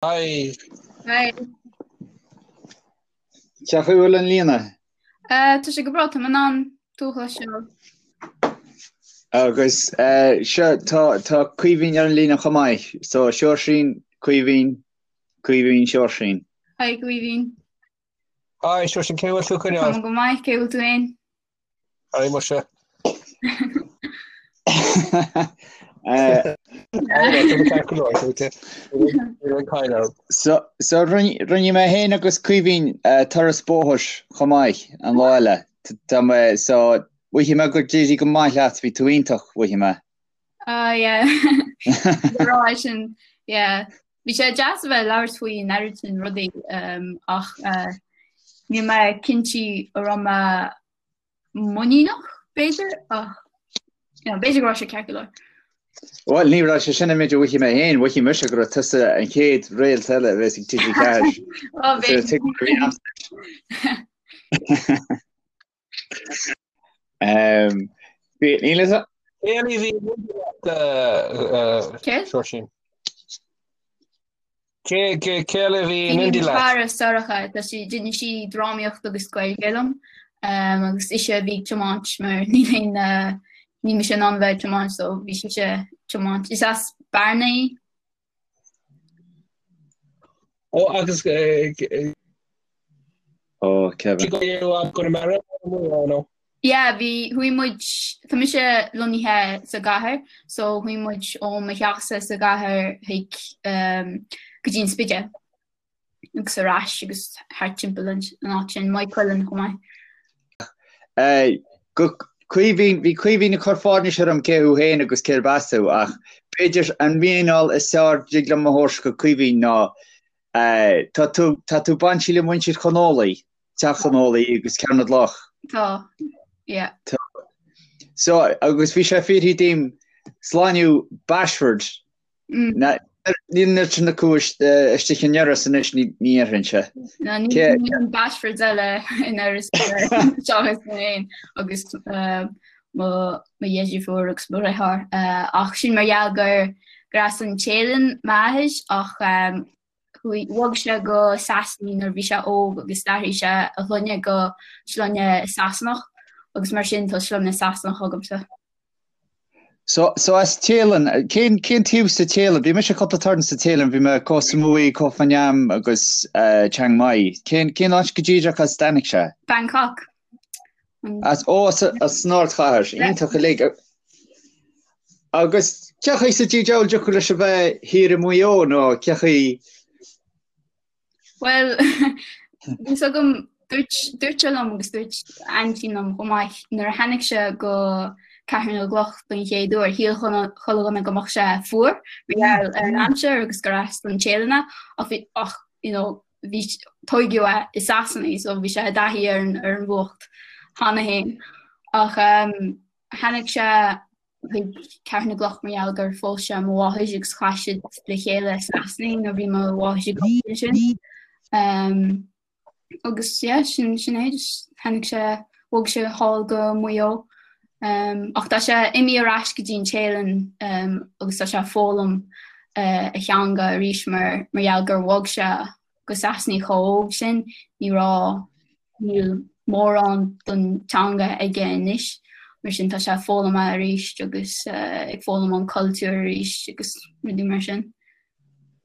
Hi. Hi. Cén chaoi a bhfuil an líne? Tá sé go breá, tá mé in ann tú a chloisteáil. Agus seo, tá tá Caoimhín ar an líne chomh maith. So Seoirsín, Caoimhín, Caoimhín, Seoirsín. Hi Caoimhín. Hi Seoirsín, cén chaoi a bhfuil tú ag coinneáil? Tá mé go maith, cén chaoi a bhfuil tú féin? Hi muise. So so rinne mé féin agus Caoimhín turas bóthair chomh maith an lá eile. Tá mé so mhothaigh mé gur d'éirigh go maith leat, bhí tú iontach, mhothaigh mé. Ah yeah. Rá sin yeah. Bhí sé deas a bheith ag labhairt faoi an oiread sin rudaí ach níl mé cinnte an raibh mé muiníneach b'fhéidir ach you know, b'fhéidir go raibh sé ceart go leor. Bhuel, ní raibh sé sin an méid a mhothaigh mé féin, mhothaigh mise go raibh tusa an chéad réalt eile a bheas ag TG4. Ó, b'fhéidir. Níl a fhios Cé eile a bhí Cé? Seoirsín. Cé cé eile a bhí in Bhí éindí mo leat? chara Sorcha, tá sí d'inis sí drámaíocht agus Gaeilge liom agus ise a bhí ag tiomáint mar níl aon níl mise in ann a bheith ag tiomáint so bhí sise ag tiomáint. Is as Bearna í. Ó agus Ó, Kevin. Conamara nó? Yeah, bhí, chuaigh muid, tá mise lonnaithe sa gcathair, so chuaigh muid ó mo theachsa sa gcathair chuig um, go dtí an Spidéal agus ar ais agus thart timpeall an áit sin, Maigh Cuilinn chomh maith. Eh, go Caoimhín, bhí Caoimhín ag cur fáirnis orm cé thú féin agus cérb as tú, ach b'fhéidir an mhíneáil is fearr a dtig liom a thabhairt go Caoimhín ná eh, tá tú, tá tú bainte le muintir Chon Ólaí, Teach Chon Ólaí agus Cearr na gCloch. Tá, yeah. Tá. So, agus bhí sé fiafraithe díom sloinneadh Bashford. Mm. Níl an oiread sin acu istigh in Iorras anois ní déarfainnse. No, níl an Bashfords eile in Iorras seachas mé féin agus mo dheirfiúr agus mo dheartháir. Ach sin mar gheall gur gur as an Téalainn m'athair ach chuaigh, bhog sé go Sasana nuair a bhí sé óg agus d'athraigh sé a shloinne go sloinne Sasanach agus mar sin tá sloinne Sasanach agamsa. So, so as Téalainn, cén, cén taobh sa Téalainn? Bhí mise cúpla turn sa Téalainn, bhí mé Koh Samui, Koh Phangan agus uh, Chiang Mai. Cén, cén áit go díreach as a dtáinig sé? Bangkok. As, ó, as, as an ardchathair, iontach uilig. Agus cén chaoi sa diabhal a dtiocfadh leis a bheith thiar i Maigh Eo nó cén chaoi Bhuel, bhí fhios agam, dúirt, dúirt sé liom agus dúirt aintín liom chomh maith, nuair a tháinig sé go Ceathrú na gCloch don chéad uair, shíl chuile dhuine go mbeadh sé fuar mar gheall ar an aimsir agus gur as don Téalainn é, ach bhí, ach, you know, bhí, tóigeadh é i Sasana so bhí sé i dtaithí ar an, ar an bhfuacht cheana féin. Ach um, tháinig sé chuig Ceathrú na gCloch mar gheall gur phós sé mo mháthair agus chaith siad le chéile i Sasana nuair a bhí mo mháthair ag obair ansin. Um, agus yeah, sin, sin é, just tháinig sé, bhog sé thall go Maigh Eo. Um, ach tá sé imithe ar ais go dtí an Téalainn um, agus tá sé ag foghlaim uh, a theanga arís mar, mar gheall gur bhog sé go Sasana chomh hóg sin, ní raibh, níl mórán don teanga aige anois, mar sin tá sé ag foghlaim é arís agus ag foghlaim an cultúr arís agus rudaí mar sin.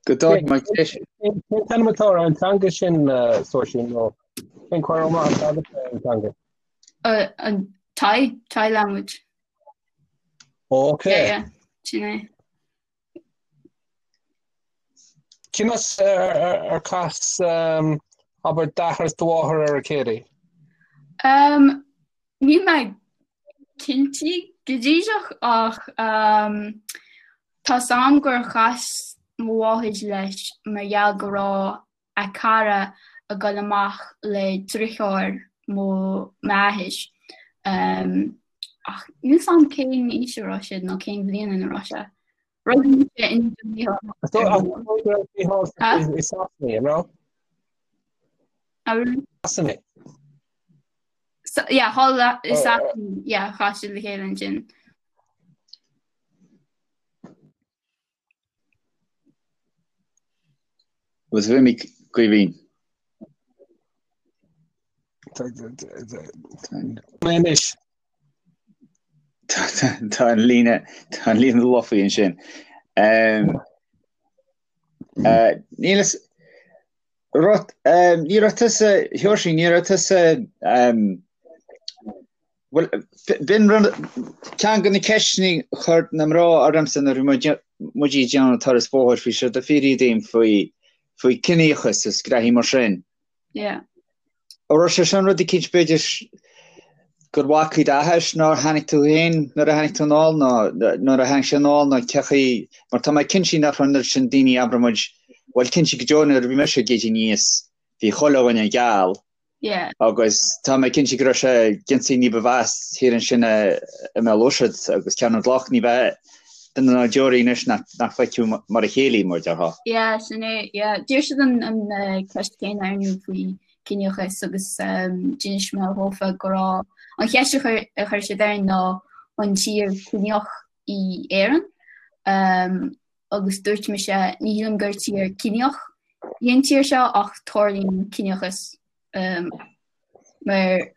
Go dóigh mar Cén t-ainm atá ar an teanga sin, Seoirsín, nó cén cur amach atá agat ar an teanga? An Thai, Thai language. Ok. Yeah, yeah, sin é. Conas ar chas abair d'athair is do mháthair ar a chéile? Níl mé cinnte go díreach ach tá 's a'm gur chas mo mháthair leis mar gheall go raibh a cara ag dul amach le driotháir mo m'athair. Ach níl 's a'm cén aois a raibh siad nó cén bhliain ina raibh sé. Rugadh mise in 1998. I Sasana, an raibh? Sasana. Yeah, thall i Sasana, yeah, chas siad le chéile ansin. Agus bhí mé Caoimhín. Mé anois. Tá an líne tá an líne lofa ansin. Níl a fhios rud ní raibh tusa Sheoirsí ní raibh tusa Bhuel, b'in rud, ceann de na ceisteanna a chuir na mná ormsa nuair a bhí muid ag déanamh turas bóthair, bhí siad ag fiafraí díom faoi, faoi ciníochas is graithí mar sin. Yeah. An raibh sé sin rud eicínt b'fhéidir gur bhacaigh d'athair nár tháinig tú féin nuair a tháinig tú anall nó nuair a tháinig sé anall nó cé chaoi, mar tá mé cinnte nach raibh an oiread sin daoine abair muid, bhuel cinnte go deo nuair a bhí mise ag éirí aníos bhí chuile dhuine geal Yeah. Agus tá mé cinnte go raibh sé ciontaí ní ba mheasa thiar ansin i mBéal Ùirsead agus Ceathrú na gCloch, ní bheadh duine ná deoraí anois nach bhfeicfeadh mar a chéile mar a déarfá. Yeah, sin é, yeah. D'iarr siad an an ceist céanna orainn faoi ciníochas agus d'inis mé dhófa go raibh an cheist a chuir a chuir siad orainn ná an tír ciníoch í Éireann agus dúirt mise ní shílim gur tír ciníoch í an tír seo ach tarlaíonn ciníochas mar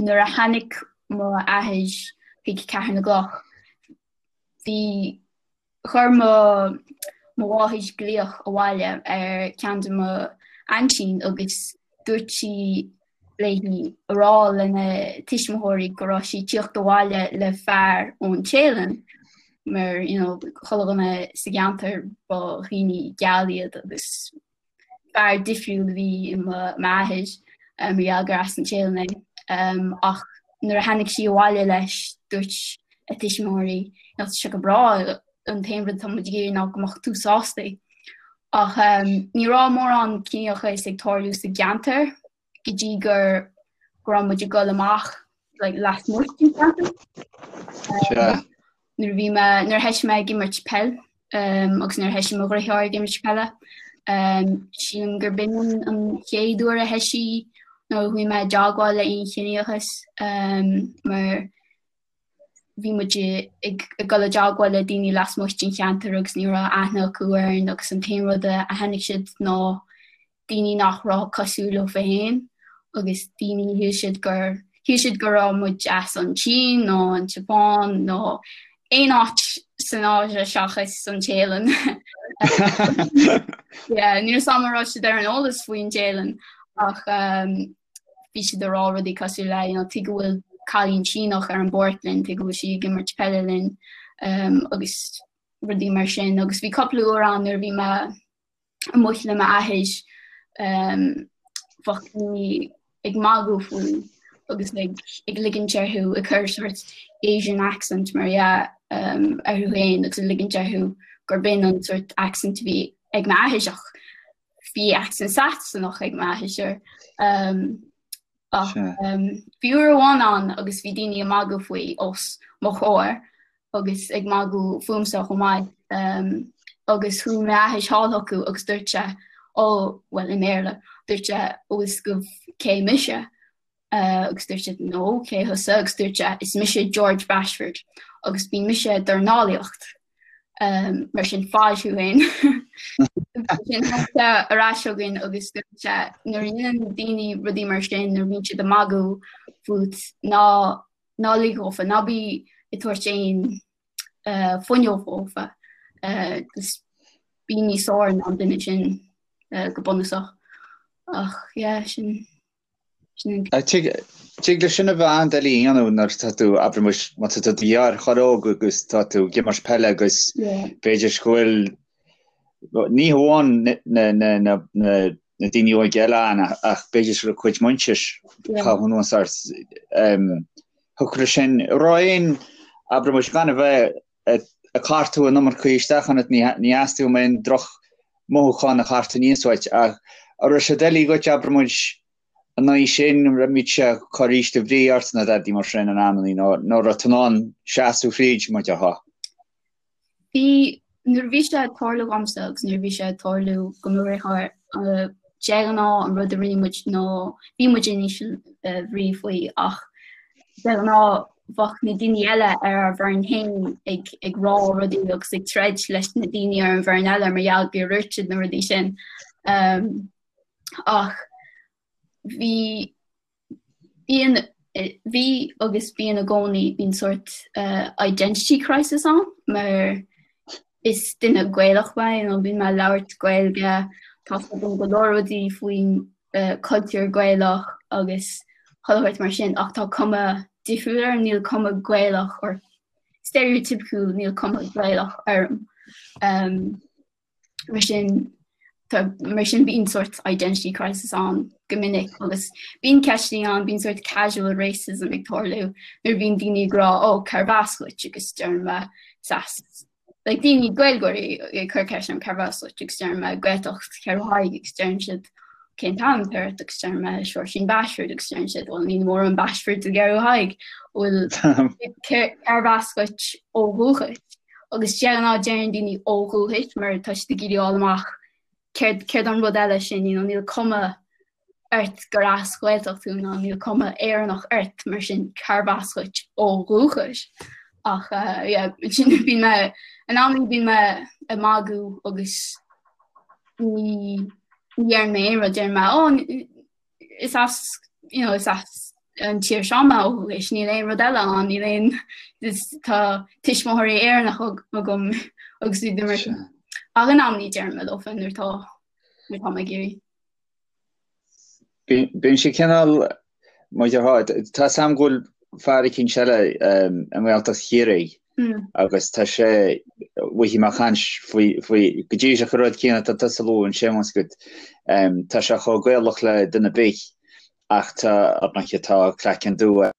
nuair a tháinig mo athair chuig Ceathrú na gCloch bhí chuir mo mo mháthair glaoch abhaile ar ceann de mo aintín agus dúirt sí léi a rá lena tuismitheoirí go raibh sí ag tíocht abhaile le fear ón Téalainn mar you know chuile dhuine sa gceantar ba dhaoine geal iad agus fear difriúil a bhí i m'athair mar gheall gur as an Téalainn é. Ach nuair a tháinig sí abhaile leis dúirt a tuismitheoirí you know tá sé go breá an t-aon rud atá muid ag iarraidh ná go mbeadh tú sásta. Ach ní raibh mórán ciníochais ag tarlú sa gceantar go dtí gur go raibh muid ag dul amach like, lasmuigh den cheantar. Sea. Nuair a bhí mé, nuair a thoisigh mé ag imirt peil um, agus nuair a thoisigh mo dheartháir ag imirt peile, um, sílim gur b'in an, an chéad uair a thoisigh nó a chuaigh mé i dteagmháil le aon chiníochas um, mar bhí muid ag dul i dteagmháil le daoine lasmuigh den cheantar agus ní raibh aithne acu orainn agus an t-aon rud a chonaic siad ná daoine nach raibh cosúil leo féin agus daoine shíl siad gur shíl siad go raibh muid as an tSín nó an tSeapáin nó aon áit san Áise seachas an Téalainn. Yeah, níl a fhios agam an raibh siad ar an eolas faoin Téalainn ach um, bhí siad ag rá rudaí cosúil le you know, tuige go bhfuil cailín Síneach ar an bpáirc linn, tuige go bhfuil sí ag imirt peile linn um, agus rudaí mar sin. Agus bhí cúpla uair ann nuair a bhí mé amuigh le m'athair um, bheadh daoine ag magadh faoi agus ag, ag ligint orthu ag cur sort Asian accent mar dhea um, orthu féin agus ag ligint orthu gur b'in an sort accent a bhí ag m'athair ach Bhí accent Sasanach ag m'athair. Ach bhí uair amháin ann agus bhí daoine ag magadh faoi os mo chomhair agus ag magadh fúmsa chomh maith. Agus chuaigh m'athair thall chucu agus dúirt sé, ó, bhuel i mBéarla, dúirt sé, an bhfuil fhios agaibh cé mise? Agus dúirt siad, no, cé thusa? Agus dúirt sé, is mise George Bashford agus bíonn mise ag dornálaíocht. Mar sin faigh thú féin. Sin tháinig sé ar ais chugainn agus dúirt sé, nuair a dhéanann daoine rudaí mar sin, nuair a bhíonn siad ag magadh fút, ná ná lig dhófa, ná bí ag tabhairt aon fuinneog dhófa. Just bí níos fearr ná an duine sin go bunúsach. Ach yeah, sin. Tig leis sin a bheith an-doiligh a dhéanamh nuair atá tú, abair muis, má tá tú i do dheartháir óg agus tá tú ag imirt peile agus b'fhéidir go bhfuil, ní hamháin na daoine óga eile ann ach b'fhéidir go raibh cuid muintir caitheamh anuas ort. Thiocfadh leis sin, raibh aon, abair muis, gan a bheith ag cartadh an iomarca isteach ionat, ní theastaíonn uaim aon droch mothúchán a chartadh aníos uait, ach an raibh sé doiligh dhuit, abair muid, an aghaidh sin, an raibh sé ag cur ísle brí ort nó dadaí mar sin in amannaí, nó nó raibh tú in ann seasamh thríd, mar a déarfá? Bhí, nuair a bhí sé ag tarlú dhomsa agus nuair a bhí sé ag tarlú do mo dheartháir, de ghnáth an rud a rinne muid ná bhí muid in íseal bhrí faoi ach de ghnáth bheadh na daoine eile ar ár bhfoireann féin ag ag rá rudaí agus ag troid leis na daoine ar an bhfoireann eile mar gheall gur dhúirt siad na rudaí sin. Ach bhí bíonn bhí agus bíonn i gcónaí bíonn sórt identity crisis ann mar is duine Gaelach mé you know bíonn mé ag labhairt Gaeilge tá fhios agam go leor rudaí faoin cultúr Gaelach agus chuile shórt mar sin ach tá cuma difriúil orm níl cuma Gaelach or stereotypical níl cuma Gaelach orm. Um, Mar sin mar sin bíonn sórt identity crisis ann go minic agus bíonn ceisteanna ann, bíonn sórt casual racism ag tarlú nuair a bhíonn daoine ag rá ó cérbh as dhuit agus deirim mé is as like daoine Gaeilgeoirí ag cur ceist orm cérbh as dhuit agus deirim mé Gaeltacht Cheathrú Thaidhg agus deireann siad cén t-ainm atá ort agus deirim mé Seoirsín Bashford agus deireann siad bhuel níl mórán Bashfords i gCeathrú Thaidhg bhfuil cérbh as dhuit ó dhúchas Agus de ghnáth deireann daoine ó dhúchas mar tá siad ag iarraidh fháil amach céard céard an rud eile sin, you know, níl cuma ort gur as Gaeltacht thú ná níl cuma Éireannach ort mar sin cérbh as dhuit ó dhúchas. Ach uh, yeah, sin bíonn mé in amannaí bíonn mé ag magadh agus ní ní deireann mé aon rud deireann mé oh, is as you know, is as an tír seo mé ó dhúchas, níl aon rud eile ann, níl aon tá tuismitheoirí Éireannach agam agus iad mar sin. Ach in amannaí deirim leofa nuair atá nuair atá mé ag iarraidh. Bíonn sé cineál mar déarfá, tá 's a'm go bhfuil fear eicínt eile i nGaeltacht Chiarraí agus tá sé bhí mé ag caint faoi faoi go díreach an rud céanna atá tusa a lua ansin más agat tá sé chomh Gaelach le duine ar bith ach tá ar ndóighe tá craiceann dubh air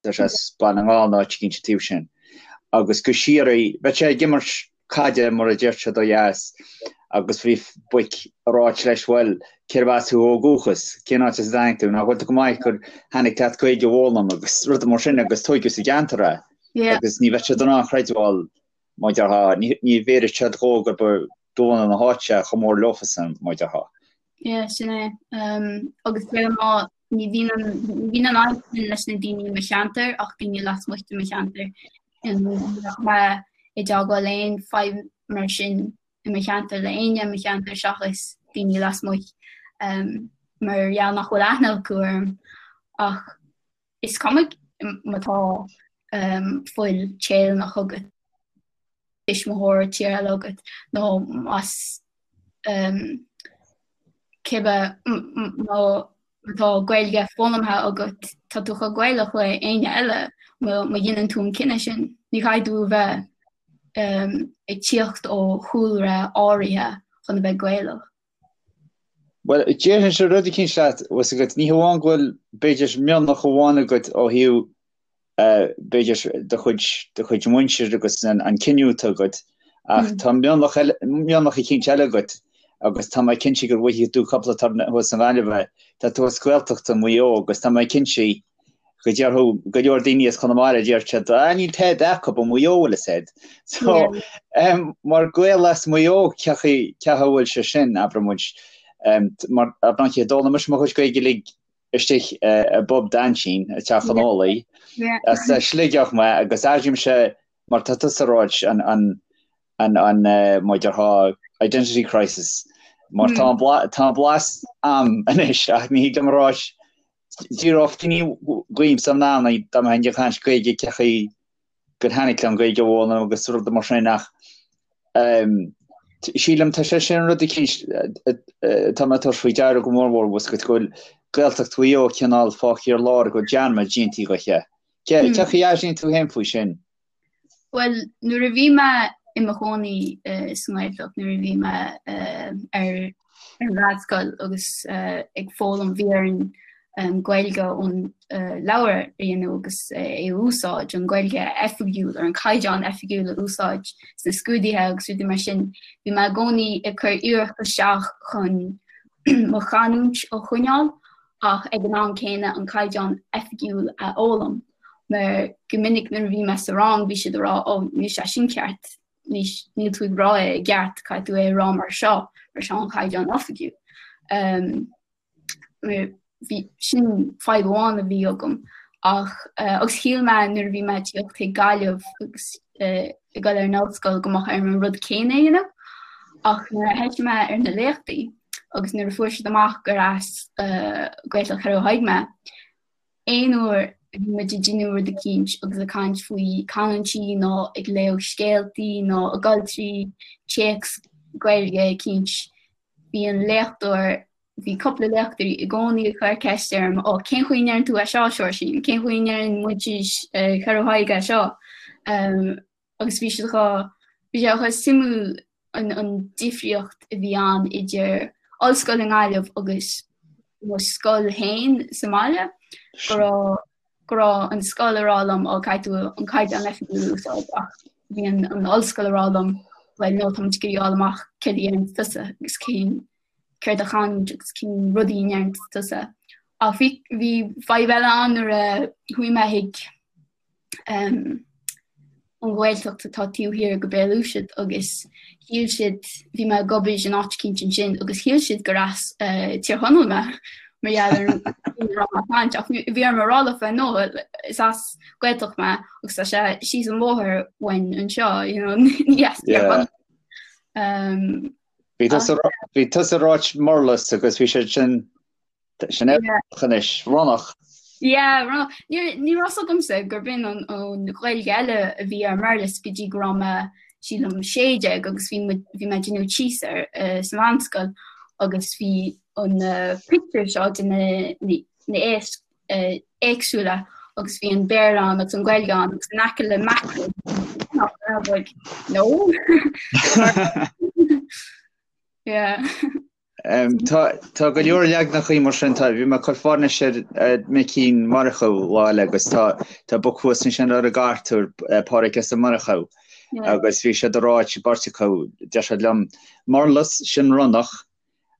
tá sé as Baile na nGall nó áit eicínt an taobh sin agus go síoraí bheadh sé ag imirt caide mar a deir siad ó dheas agus bhí boic ag ráit leis bhuel cérbh as thú ó dhúchas, cén áit as a dtáinig tú, nach bhfuil tú go maith gur tháinig leat Gaeilge a fhoghlaim agus rudaí mar sin agus tóigeadh sa gceantar é agus ní bheadh siad in ann chreidbheáil mar déarfá, ní bhéarfadh siad dhó gur ba de bhunadh na háite chomh mór leofasan mar déarfá. Yeah, sin é. Um, agus de ghnáth ní bhíonn an ní bhíonn an fhadhb sin leis na daoine i mo cheantar ach daoine lasmuigh de mo cheantar. Ní bheadh mé i dteagmháil le aon fadhb mar sin i mo cheantar le éinne i mo cheantar seachas daoine lasmuigh um, mar gheall nach bhfuil aithne acu orm ach is cuma má tá um, fuil Téalannach agat tuismitheoir tír eile agat nó más um, cibé má tá Gaeilge foghlamtha agat tá tú chomh Gaelach le éinne eile má dhéanann tú an cinneadh sin. Ní chaithfidh tú a bheith um, ag tíocht ó chúlra áirithe chun a bheith Gaelach. Bhuel, déarfainnse rud eicínt leat, bhfuil 's agat, ní hamháin go bhfuil, b'fhéidir, mionlach amháin agat ó thaobh, b'fhéidir, do chuid, do chuid muintir agus an cinneadh atá agat, ach tá mionlach eile, mionlach eicínt eile agat agus tá mé cinnte go bhfaighidh tú cúpla turn thuas i nGaillimh é, tá tú as Gaeltacht i Maigh Eo agus tá mé cinnte go déarfadh go leor daoine as Conamara, deir siad, ah, níl tada acu i Maigh Eo, bhfuil fhios a'd. So, um, mar Gael as Maigh Eo, cé chaoi a bhfuil sé sin, abraigh muid, um, mar ar ndóigh, d'fhoghlaim mise mo chuid Gaeilge uilig istigh uh, i bpub d'aintín, i dTeach an Ólaí, as uh, Sligeach mé, agus airímse, mar tá tusa ag ráit, an, an, an, an, uh, mar déarfá, identity crisis, mar tá an bla, tá an blas a'm anois, ach ní thig liom a ráit, D'fhiafródh daoine dhíomsa in amannaí dá mbeinn ag caint Gaeilge cé chaoi gur tháinig liom Gaeilge a fhoghlaim agus rudaí mar sin ach sílim tá sé sin rud eicínt atá mé ag tabhairt faoi deara go mór mór bhfuil 's agat go bhfuil Gaeltacht Mhaigh Eo cineál fágtha ar lár go bhfuil dearmad déanta dhi. Cé chaoi a airíonn tú féin faoi sin? Bhuel, nuair a bhí mé i mo chónaí sa nGaeltacht, nuair a bhí mé ar ar an mheánscoil agus ag foghlaim, bhí orainn Gaeilge ón leabhar a dhéanamh agus é a úsáid, an Ghaeilge oifigiúil, ar an caighdeán oifigiúil a úsáid sna scrúduithe agus rudaí mar sin. Bhí mé i gcónaí ag cur iarracht isteach chun mo chanúint a choinneáil ach ag an am céanna an caighdeán oifigiúil a fhoghlaim. Mar go minic nuair a bhí mé sa rang bhí siad ag rá ó níl sé sin ceart, níl tú ag rá é i gceart, caithfidh tú é a rá mar seo, mar seo an caighdeán oifigiúil. Um, bhí sin fadhb amháin a bhí agam ach uh, agus shíl mé nuair a bhí mé ag tíocht chuig Gaillimh agus uh, ag dul ar an ollscoil go mbeadh orm an rud céanna a dhéanamh ach nuair a thoisigh mé ar na léachtaí. Agus nuair a fuair siad amach gur as Gaeltacht Cheathrú Thaidhg mé, aon uair a bhí muid ag déanamh rud eicínt agus ag caint faoi canúintí nó ag léamh scéaltaí nó ag dul trí téacs Gaeilge eicínt, bhí an léachtóir, bhí cúpla léachtóirí i gcónaí ag cur ceist orm, ó cén chaoi a ndeireann tú é seo, a Seoirsín? Cén chaoi a ndeireann muintir Cheathrú Thaidhg é seo? Agus bhí siad chomh, bhí sé chomh suimiúil an an difríocht a bhí ann idir ollscoil i nGaillimh agus mo scoil féin sa mbaile, go raibh go raibh an scoil ag rá liom ó caithfidh tú an caighdeán oifigiúil a úsáid ach bhí an an ollscoil ag rá liom bhuel no tá muid ag iarraidh fháil amach céard a dhéanann tusa agus cén céard a chanúint agus cén rudaí a ndeireann tusa. Ach bhí bhí fadhb eile ann nuair a chuaigh mé chuig an Ghaeltacht atá taobh thiar go Béal Uisnead agus shíl siad, bhí mé ag obair in áit eicínt ansin agus shíl siad gur as Tír Chonaill mé mar gheall ar an raibh mé ag caint ach bhí orm a rá leofa no is as Gaeltacht mé agus tá sé síos an bóthar uainn anseo you know ní as Tír Chonaill. Bhí tusa ag ráit murlas agus bhí siad sin Sin é anois, ronnach. Yeah, ronnach. Ní ní raibh fhios agamsa gurb in an an Ghaeilge eile a bhí ar murlas go dtí go raibh mé sílim 16 agus bhí muid bhí mé ag déanamh tíos air eh, sa mheánscoil agus bhí an eh, pictiúr seo de na na na éisc eh, éagsúla agus bhí an Béarla ann agus an Ghaeilge ann agus in aice le mackerel I was like, no. Yeah. Tá go leor leaganachaí mar sin, tá, bhí mé ag cur fáirnis ar Mhicín Murchú lá eile agus tá tá boc thuas ansin ar an gcartúr, Pádraic S. Ó Murchú agus bhí siad ag ráit beirt acu, deir siad liom, murlas sin ronnach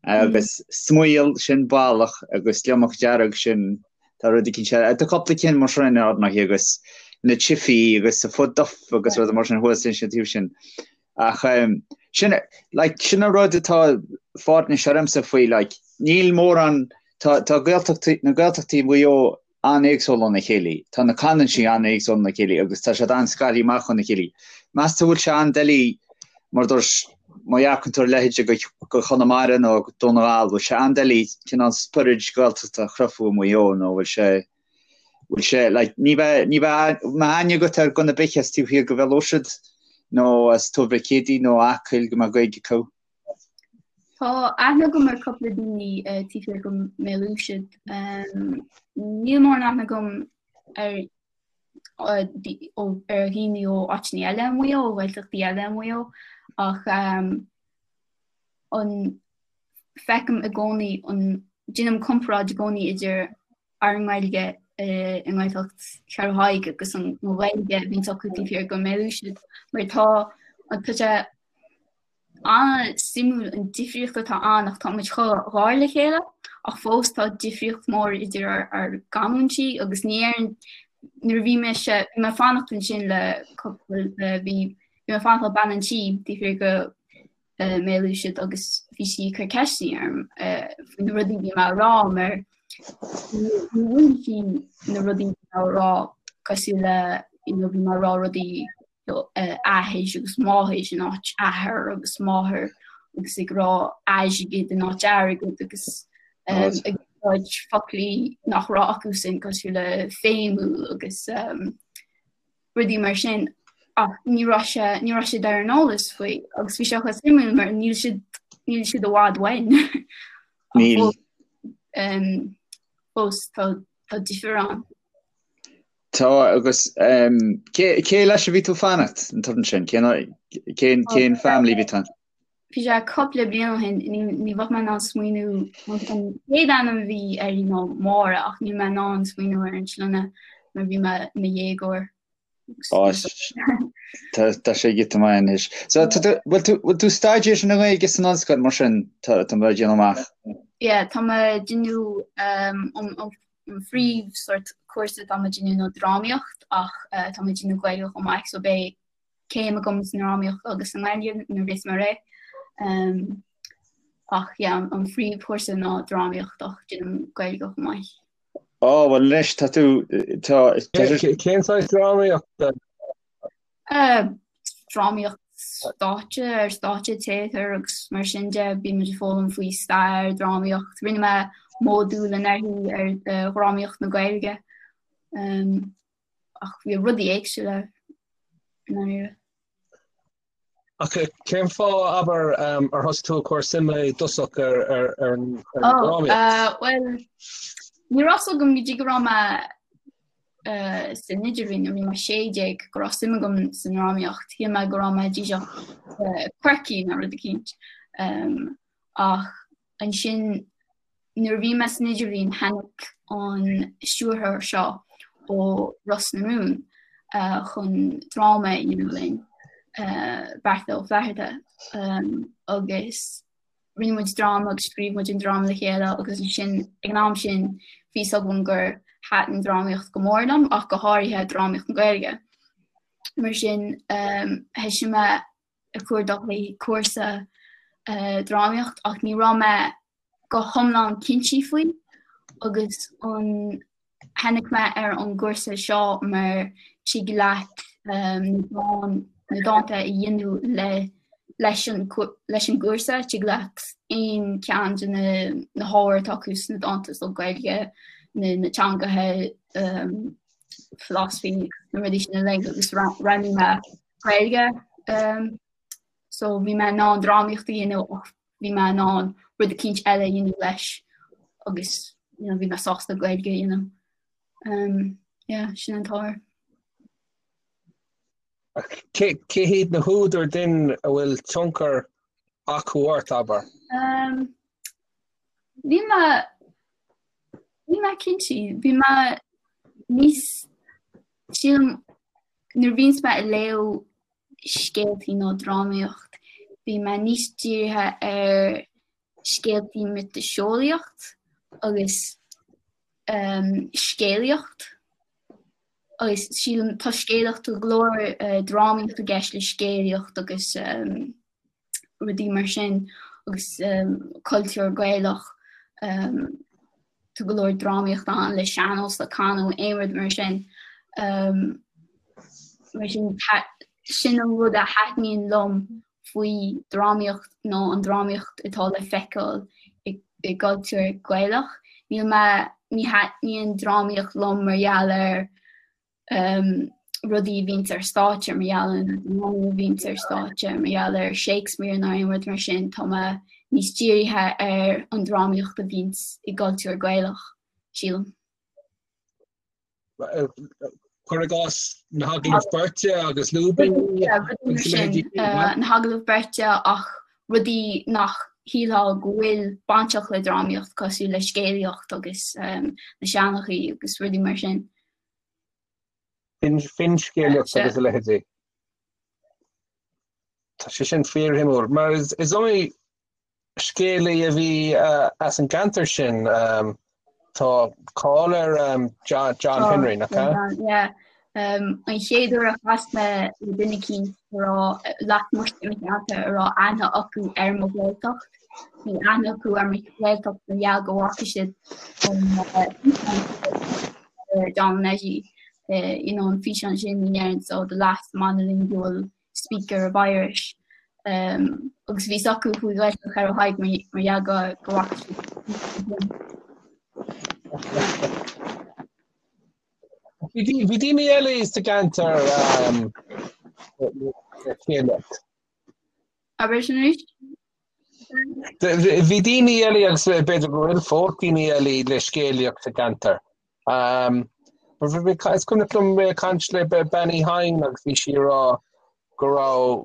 agus smaol sin ballach agus gliomach dearg sin tá rud eicínt eile, tá cúpla cinn mar sin ar ndóigh agus na chifí agus a futt duff agus rudaí mar sin thuas ansin taobh sin. Ach sin, like, sin an rud atá fáirnis ormsa faoi, like, níl mórán, tá, tá Gaeltachtaí, na Gaeltachtaí i Maigh Eo an-éagsúil óna chéile, tá na canúintí an-éagsúil óna chéile agus tá siad an-scartha amach óna chéile. Meas tú bhfuil sé an-doiligh, mar dúirt, má dhearcann tú ar leithéide go, go Chonamara nó go Dún na nGall, bhfuil sé an-doiligh cineál spiorad Gaeltachta a chruthú i Maigh Eo nó bhfuil sé, bhfuil sé, like, ní bheidh, ní bheidh, mbeadh aithne agat ar dhuine ar bith as taobh thiar go Bhéal Órsaid nó as Tuar Mhic Éadaigh nó Acaill go mbeadh Gaeilge acu. Tá aithne agam ar cúpla daoine eh, taobh thiar go mBéal Uisnead. Um, níl mórán aithne agam ar ar dhaoine ó áiteanna eile i Maigh Eo, ó Ghaeltachtaí eile i Maigh Eo, ach um, an feicim i gcónaí an déanaim comparáid i gcónaí idir ár nGaeilge i nGaeltacht Cheathrú Thaidhg agus an Ghaeilge a bhíonns acu taobh thiar go mBéal Uisnead mar tá tá sé an-suimiúil an difríocht atá ann ach tá muid chomh gar le chéile ach fós tá difríocht mór idir ár ár gcanúintí agus ní ar nuair a bhí mise bhí mé ag fanacht ansin le cúpla bhí bhí mé ag fanacht le bean an tí taobh thiar go mBéal Uisnead agus bhí sí ag cur ceisteanna orm faoi na rudaí a bhí mé a rá mar ní bhfuil sí na rudaí a bhí mé a rá cosúil le you know, bhí mé a rá rudaí athair agus máthair in áit athair agus máthair agus ag rá airgead in áit airgead agus ag úsáid foclaí nach raibh acusan cosúil le feidhmiúil agus um, rudaí mar sin ach ní raibh sé ní raibh siad ar an eolas faoi agus bhí sé chomh suimiúil mar níl siad níl siad i bhfad uainn. Níl. Um, fós tá tá difear ann. Tá agus um, cé, cé leis a bhí tú fanacht an turan sin? Cén, cén, cén family bhí tú ann? Bhí sé cúpla bliain ó shin, ní bheadh mé in ann smaoineamh an chéad ainm a bhí uirthi ná Máire ach níl mé in ann smaoineamh ar an sloinne mar bhí mé i mo dhéagóir. Tá sé giota maith anois. So bhfuil tú bhfuil tú staidéar na Gaeilge san ollscoil mar sin tá tá mé ag déanamh amach? Yeah, tá mé ag déanamh um, an phríomh sort cúrsa tá mé ag déanamh ná drámaíocht ach uh, tá mé ag déanamh Gaeilge chomh maith so beidh céim agam sa ndrámaíocht agus sa nGaeilge nuair a bheas mé réidh. Um, ach yeah, an, an phríomhchúrsa ná drámaíocht ach déanaim Gaeilge chomh maith. Ó, bhuel anois tá tú tá Cén saghas drámaíochta? Uh, drámaíocht. stáitse, ar stáitse, téatar agus mar sin de, bíonn muid ag foghlaim faoi stair, drámaíocht. Rinne mé módúl anuraidh ar dhrámaíocht na Gaeilge. Ach bhí rudaí éagsúla i ndáiríre. Ach cén fáth, abair, ar thosaigh tú ag cur suime i dtosach ar an drámaíocht? Bhuel, ní raibh fhios agam go dtí go raibh mé san idirbhliain, nuair a bhí mé 16, go raibh suim agam sa ndrámaíocht. Shíl mé go raibh mé díreach quirky nó rud eicínt. Ach ansin nuair a bhí mé san idirbhliain tháinig an stiúrthóir seo ó Ros na Rún chun dráma a dhéanamh linn, Beartla Ó Flatharta, agus rinne muid dráma agus scríobh muid an dráma le chéile agus ansin ag an am sin bhí fhios agam gur thaitin drámaíocht go mór liom ach go háirithe drámaíocht na Gaeilge. Mar sin thoisigh mé ag cuardach le cúrsa drámaíocht ach ní raibh mé go hiomlán cinnte faoi agus an tháinig mé ar an gcúrsa seo mar tig leat na dánta a dhéanamh le leis an leis an gcúrsa, tig leat aon cheann de na na hábhair atá acu sna dánta so Gaeilge, na na teangacha, philosophy, na rudaí sin uilig agus roghnaigh mé Gaeilge. So bhí mé in ann drámaíocht a dhéanamh ach bhí mé in ann rud eicínt eile a dhéanamh leis agus you know, bhí mé sásta Gaeilge a dhéanamh. Um, yeah, sin an t-ábhar. Cé cé hiad na húdair din a bhfuil tionchar acu ort, abair? Um, níl mé níl mé cinnte, bhí mé níos sílim nuair a bhíonns mé ag léamh scéaltaí nó drámaíocht, bhí mé níos dírithe ar scéaltaí miotaseolaíocht agus scéalaíocht agus sílim tá scéalaíocht go leor drámaíocht i gceist le scéalaíocht agus rudaí mar sin agus cultúr Gaelach. Tá go leor drámaíocht ann le sean-nós, le canadh, aon rud mar sin. Mar sin sin an rud a thaitníonn liom faoi drámaíocht nó an drámaíocht atá le feiceáil i gcultúr Gaelach. Níl mé, ní thaitníonn drámaíocht liom mar gheall ar rudaí a bhíonns ar stáitse, mar gheall ar na drámaí a bhíonns ar stáitse, mar gheall ar Shakespeare nó aon rud mar sin, tá mé níos dírithe ar an drámaíocht a bhíonns i gcultúr Gaelach, sílim. Cuir i gcás na hagallaimh beirte agus lúibíní agus a leithéidí. Na hagallaimh beirte ach rudaí nach shílfeá go bhfuil bainteach le drámaíocht cosúil le scéalaíocht agus na seanchaí agus rudaí mar sin. Finscéalaíocht agus a leithéidí. Tá sé sin fíorshuimiúil mar is iomaí scéalaí a bhí as an gceantar sin. Tá cáil ar John Henry, nach ea? Yeah. An chéad uair a chas mé le duine eicínt a raibh lasmuigh de mo cheantar a raibh aithne acu ar mo Ghaeltacht, bhí aithne acu ar mo Ghaeltacht mar gheall go bhfaca siad an John Neidí, you know, an físeán sin in Éirinn, so the last monolingual speaker of Irish. Um, agus bhí a fhios acu faoi Ghaeltacht Cheathrú Thaidhg mar gheall go go bhfaca siad. Bhí daoine eile sa gceantar um, le scéalaíocht. Abair sin arís? Bhí daoine eile agus b'fhéidir go bhfuil fós daoine eile le scéalaíocht sa gceantar. Is cuimhneach liom mé ag caint le Bean Uí Chadhain agus bhí sí ag rá go raibh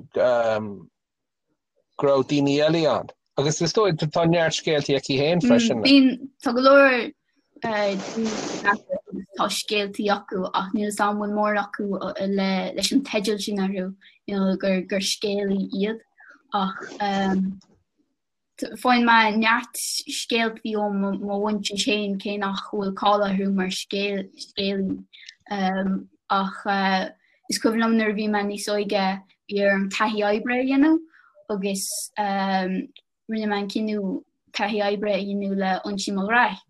go raibh daoine eile ann. Agus is dóigh tá neart scéaltaí aici féin freisin. Bíonn tá go leor daoine tá scéaltaí acu ach níl 'fhios a'm an bhfuil mórán acu le leis an teideal sin orthu you know, gur gur scéalaí iad ach Faigheann mé neart scéaltaí ó mo mhuintir féin cé nach bhfuil cáil orthu mar scéalaí. Ach is cuimhin liom nuair a bhí mé níos óige bhí orm taithí oibre a dhéanamh agus rinne mé an cinneadh taithí oibre a dhéanamh le Uinsí Mac Graith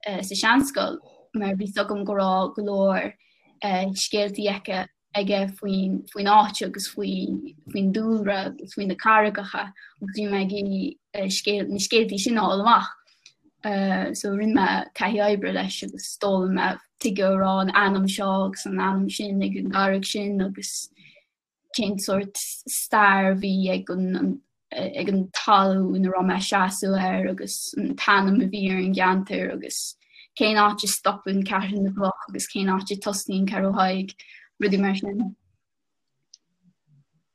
sa seanscoil mar bhí 'fhios agam go raibh go leor scéaltaí aici. aige faoin faoin áit agus faoi faoin dúlra agus faoi na carraigeacha agus bhí mé ag iarraidh scéal na scéaltaí sin a fháil amach. So rinne mé taithí oibre leis agus d'fhoghlaim mé tuige a raibh an ainm seo agus an ainm sin ag an gcarraig sin agus cén sórt stair a bhí ag an ag an talamh ina raibh mé ag seasamh air agus an t-ainm a bhí ar an gceantar agus cén áit a stopann Ceathrú na gCloch agus cén áit a tosnaíonn Ceathrú Thaidhg, rudaí mar sin.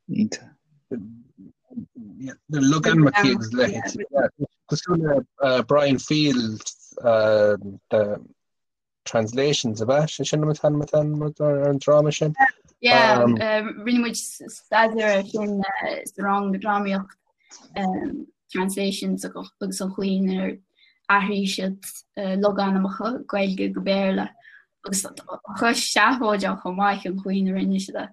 Iontach. Na logainmneacha agus a leithéid. Cosúil le Brian Field, Translations ab ea? Sé sin an t-ainm atá ar an dráma sin? Yeah, rinne muid staidéar air sin sa rang drámaíocht Translations agus an chaoi inar athraigh siad logainmneacha Gaeilge go Béarla agus tá sé seafóideach chomh maith an chaoi ina rinne siad é.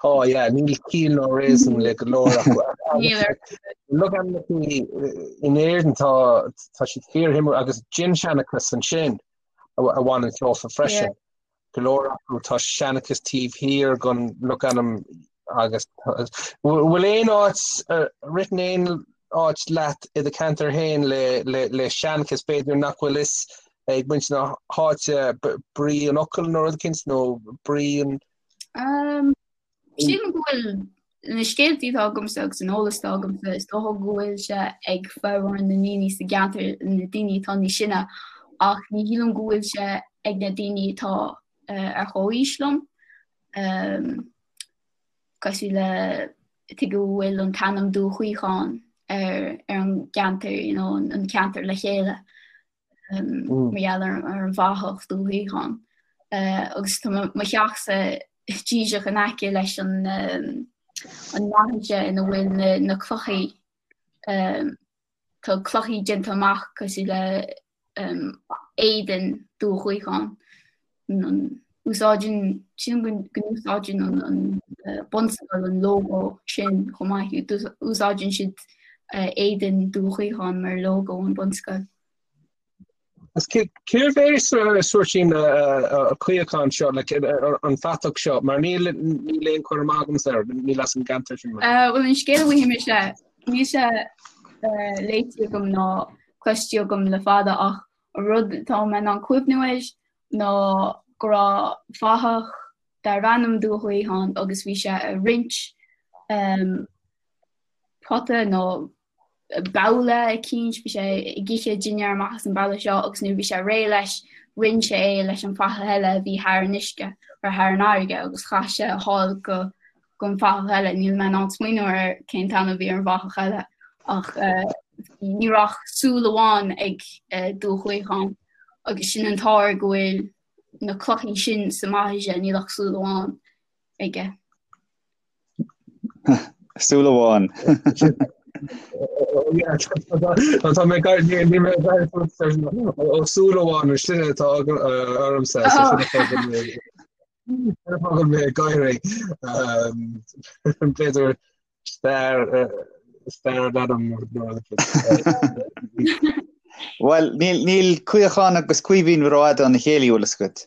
Tá, yeah, níl ciall ná réasún le go leor acu. Níl ar. Logainmneacha in Éirinn tá tá siad fíorshuimiúil agus dinnseanchas ansin a bhaineann leofa freisin. Go leor acu tá seanchas taobh thiar den logainm agus bhfuil aon áit ritheann aon áit leat i do cheantar féin le le le seanchas b'fhéidir nach bhfuil fhios ag muintir na háite brí an fhocail nó rud eicínt nó brí an. Sílim go bhfuil na scéaltaí atá agamsa agus an eolas atá agamsa, is dócha go bhfuil sé ag formhór na ndaoine sa gceantar, na daoine atá níos sine, ach ní shílim go bhfuil sé ag na daoine atá ar chomhaois liom. Cosúil le tuige go bhfuil an t-ainm Dún Chaocháin ar ar an gceantar, you know, an ceantar le chéile. mar gheall ar an bhfathach Dún Chaocháin. Agus tá mo theachsa díreach in aice leis an an mbaithis ina bhfuil na clochaí. Tá clochaí déanta amach cosúil le éadan Dún Chaocháin. Úsáideann, sílim go n-úsáideann an bunscoil an lógó sin chomh maith. Úsáideann siad éadan Dún Chaocháin mar lógó an bunscoil. Agus cérbh é sórt sin Caochán seo, an fatach seo, mar níl aon chur amach agamsa air, níl as an gceantar sin mé. Bhuel an scéal a bhfaighidh mise, níl sé léite agam ná cloiste agam le fada ach an rud atá mé in ann cuimhniú air ná go raibh fathach darbh ainm Dún Chaocháin agus bhí sé ag roinnt pota nó babhla eicínt, bhí sé ag ithe dinnéar amach as an babhla seo agus nuair a bhí sé réidh leis, roinn sé é leis an bhfathach eile a bhí thar an uisce, or thar an fharraige agus chaith sé thall go gon bhfathach eile. Níl mé in ann smaoineamh ar cén t-ainm a bhí ar an bhfathach eile ach ní raibh ach súil amháin ag Dún Chaocháin agus sin an t-ár go bhfuil na clochaí sin sa mbaithis, níl ach súil amháin aige. Súil amháin. Tá mé gar ní mé ó súil amháin an sin atá ormsa Fágann mé ag gáirí. B'fhéidir stair stair an ainm Bhuel, níl níl Caochán agus Caoimhín rófhada óna chéile, bhfuil fhios agat.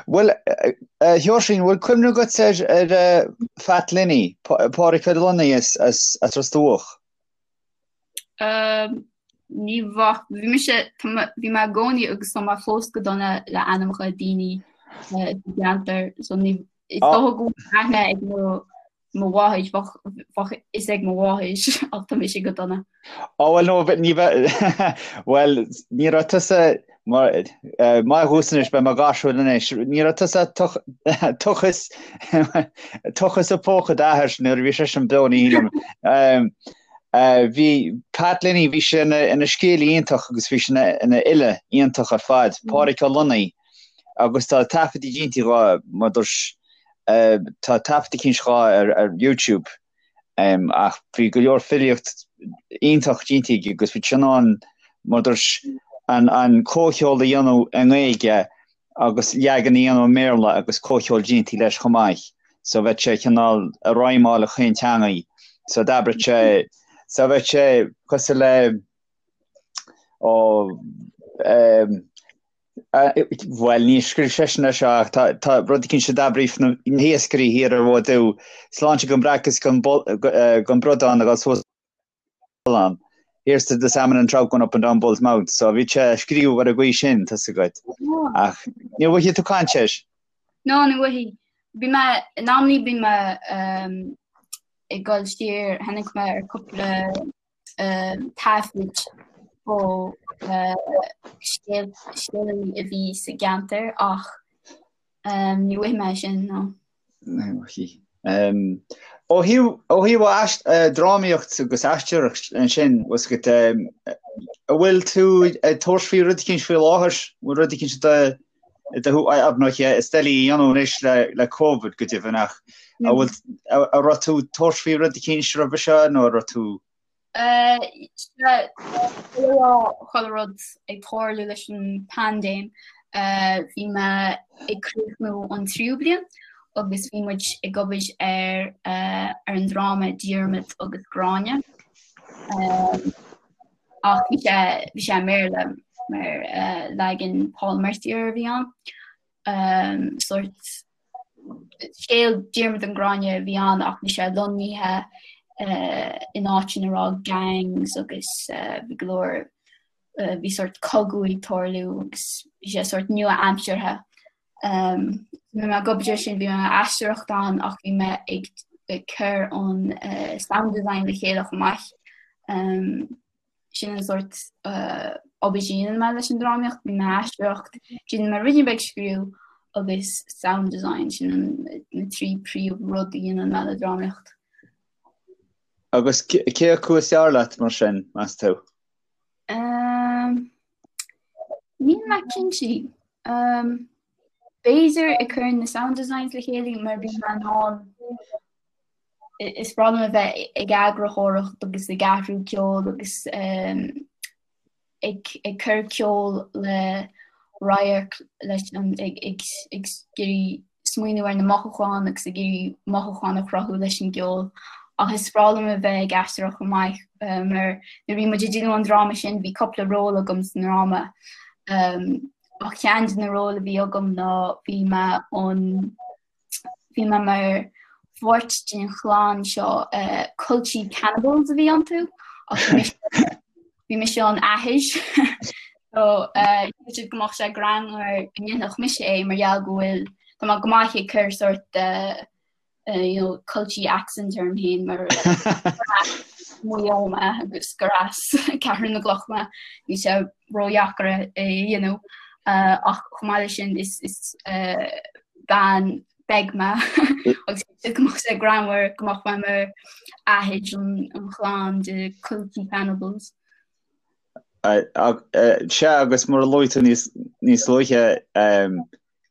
Bhuel, a Sheoirsín, bhfuil cuimhne agat ar ar Phat Lenny, Pádraic Ó Lonnaigh as as as Ros Dumhach? Ní bheadh, bhí mise, bhí mé i gcónaí agus tá mé fós go dona le ainmneacha daoine sa gceantar so ní, is dócha go bhfuil aithne ag mo mo mháthair, bheadh bheadh fhios ag mo mháthair ach tá mise go dona. Ó bhuel no ní bheadh, bhuel ní raibh tusa mar maith thusa anois beidh mé gáirsiúil anois, ní raibh tusa tochas tochas i póca d'athar nuair a bhí seisean beo ní shílim. Bhí Pat Lenny, bhí sé ina scéalaí iontach agus bhí sé ina fhile iontach ar fad, Pádraic Ó Lonnaigh, agus tá taifeadtaí déanta dhó, mar dúirt, tá taifead eicínt dhó ar YouTube, ach bhí go leor filíocht iontach déanta aige agus bhí sé in ann, mar dúirt, an comhcheol a dhéanamh i nGaeilge agus leagan a dhéanamh i mBéarla agus comhcheol déanta leis chomh maith so bheadh sé cineál ag rhymeáil chaon teangaidh so d'abraigh sé so bheadh sé cosúil le. Ó bhuel níor scríobh seisean é seo ach tá rud eicínt a d'abraíodh na hiascairí thiar ar Mhaigh Dubh, sláinte don bhreac is don bhradán ag dul suas an. Here's to the salmon and trout going up and down Bull's Mouth. So bhí sé scríobh ar an gcaoi sin, tá's agat. Ach ní bhfaighidh tú caint air. No, ní bhfaighidh. Bhí mé, in amannaí bhí mé ag dul siar, tháinig mé ar cúpla taifid ó scéalaí a bhí sa gceantar ach ní bhfaighidh mé sin, no. Ó thaobh drámaíocht agus aisteoireacht ansin, bhfuil 's agat, an bhfuil tú ag tabhairt faoi rud eicínt faoi láthair? Bhfuil rud eicínt do ar ndóighe is doiligh a dhéanamh anois le Covid go deimhin ach an bhfuil an raibh tú ag tabhairt faoi rud eicínt roimhe seo nó an raibh tú Chuile rud ag tarlú leis an paindéim, bhí mé ag críochnú an tríú bliain agus bhí muid ag obair ar ar an dráma Diarmaid agus Gráinne. Ach bhí sé bhí sé i mBéarla mar leagan Paul Mercier a bhí ann. Sórt scéal Diarmaid and Gráinne a bhí ann ach bhí sé lonnaithe in áit ina raibh gangs agus bhí go leor, bhí sórt cogadh ag tarlú agus bhí sé sórt nua-aimseartha. Bhí mé ag obair air sin, bhí mé ag aisteoireacht ann ach bhí mé ag cur an sound design le chéile chomh maith. Sin an sórt obair a dhéanann mé leis an drámaíocht, bíonn mé ag aisteoireacht, déanann mé ruidín beag scríobh agus sound design, sin na 3 príomh rud a dhéanann mé le drámaíocht. Agus cé acu is fearr leat mar sin, meas tú? Níl mé cinnte. B'fhéidir ag cur na sound designs le chéile mar bíonn mé in ann is breá liom a bheith ag eagarthóireacht agus ag athrú ceoil agus ag ag cur ceol le radharc leis an ag ag ag iarraidh smaoineamh ar na mothúcháin agus ag iarraidh mothúcháin a chruthú leis an gceol. Ach is breá liom a bheith ag aisteoireacht chomh maith mar nuair a bhí muid ag déanamh an dráma sin bhí cúpla ról agam sa ndráma. Ach ceann de na róil a bhí agam ná bhí mé an Bhí mé mar pháirt den chlann seo, Culchie Cannibals a bhí iontu ach bhí mise an athair so shíl siad go mbeadh sé greannmhar go ndéanfadh mise é mar gheall go bhfuil, tá mé go maith ag cur sórt you know culchie accent orm féin mar Maigh Eo mé agus gur as Ceathrú na gCloch mé, níl sé ródheacair é a dhéanamh ach chomh maith leis sin is bean beag mé agus go mbeadh sé greannmhar go mbeadh mé mar athair an chlann de Culchie Cannibals. Sea agus mar a luaigh tú níos luaithe